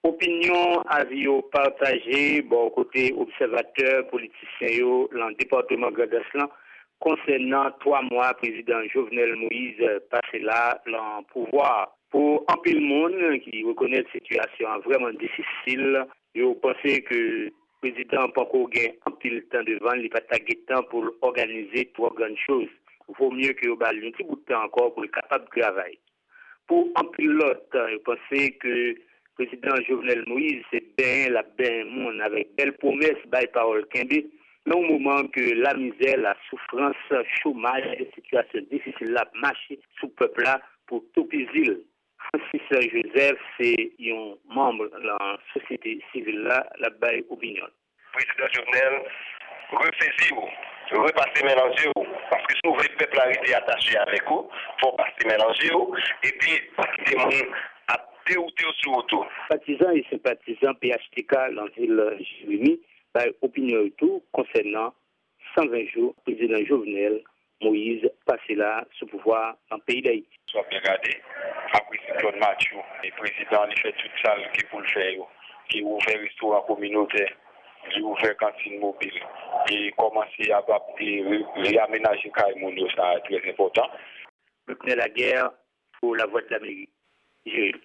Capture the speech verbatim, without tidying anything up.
Opinyon, avi yo pataje bò kote obsèvatè, politisyen yo lan depatman Grandans lan konsènan twa mwa prezidan Jovenel Moïse pase la lan pouvwa. Pou anpil moun ki rekonèt sitiyasyon an vrèman difisil, yo panse ke prezidan an panko gen anpil tan devan l, li pa ta gen tan pou l òganize twò grann choz. Vo mye ke yo ba l yon ti bout tan ankò pou l kapab travay. Pou anpil lòt, yo panse ke prezidan Jovenel Moïse se benyen l ap benyen moun avèk bèl pwomès, bay pawòl kenbe, nan yon moman ke lamizè, lasoufrans, chomaj, sitiyasyon difisil la ap mache sou pèp la pou toupizi l. Francis Joseph se yon manm nan sosyete sivil la, l ap bay opinyon l. Prezidan Jovenel, resezi w, repase men nan zye w, paske si w vle pèp la rete atache avèk ou, fò w pase men nan zye w, epi pa kite moun ap dewoute w sou wout ou. Patizan e senpatizan P H T K nan vil Jeremi bay opinyon yo tou konsènan san ven jou prezidan Jovenel Moïse pase la sou pouvwa nan peyi Dayiti. Si w ap byen gade, apre siklòn Matthew, e prezidan an li fè tout sa l gen pou l fè yo. Li ouvè restoran kominotè, li ouvè kantin mobil, e kòmanse ap, ap, e re-, reyamenaje kay moun yo, sa trè enpòtan. Luckner Laguerre pou Lavwadlamerik, Jeremi.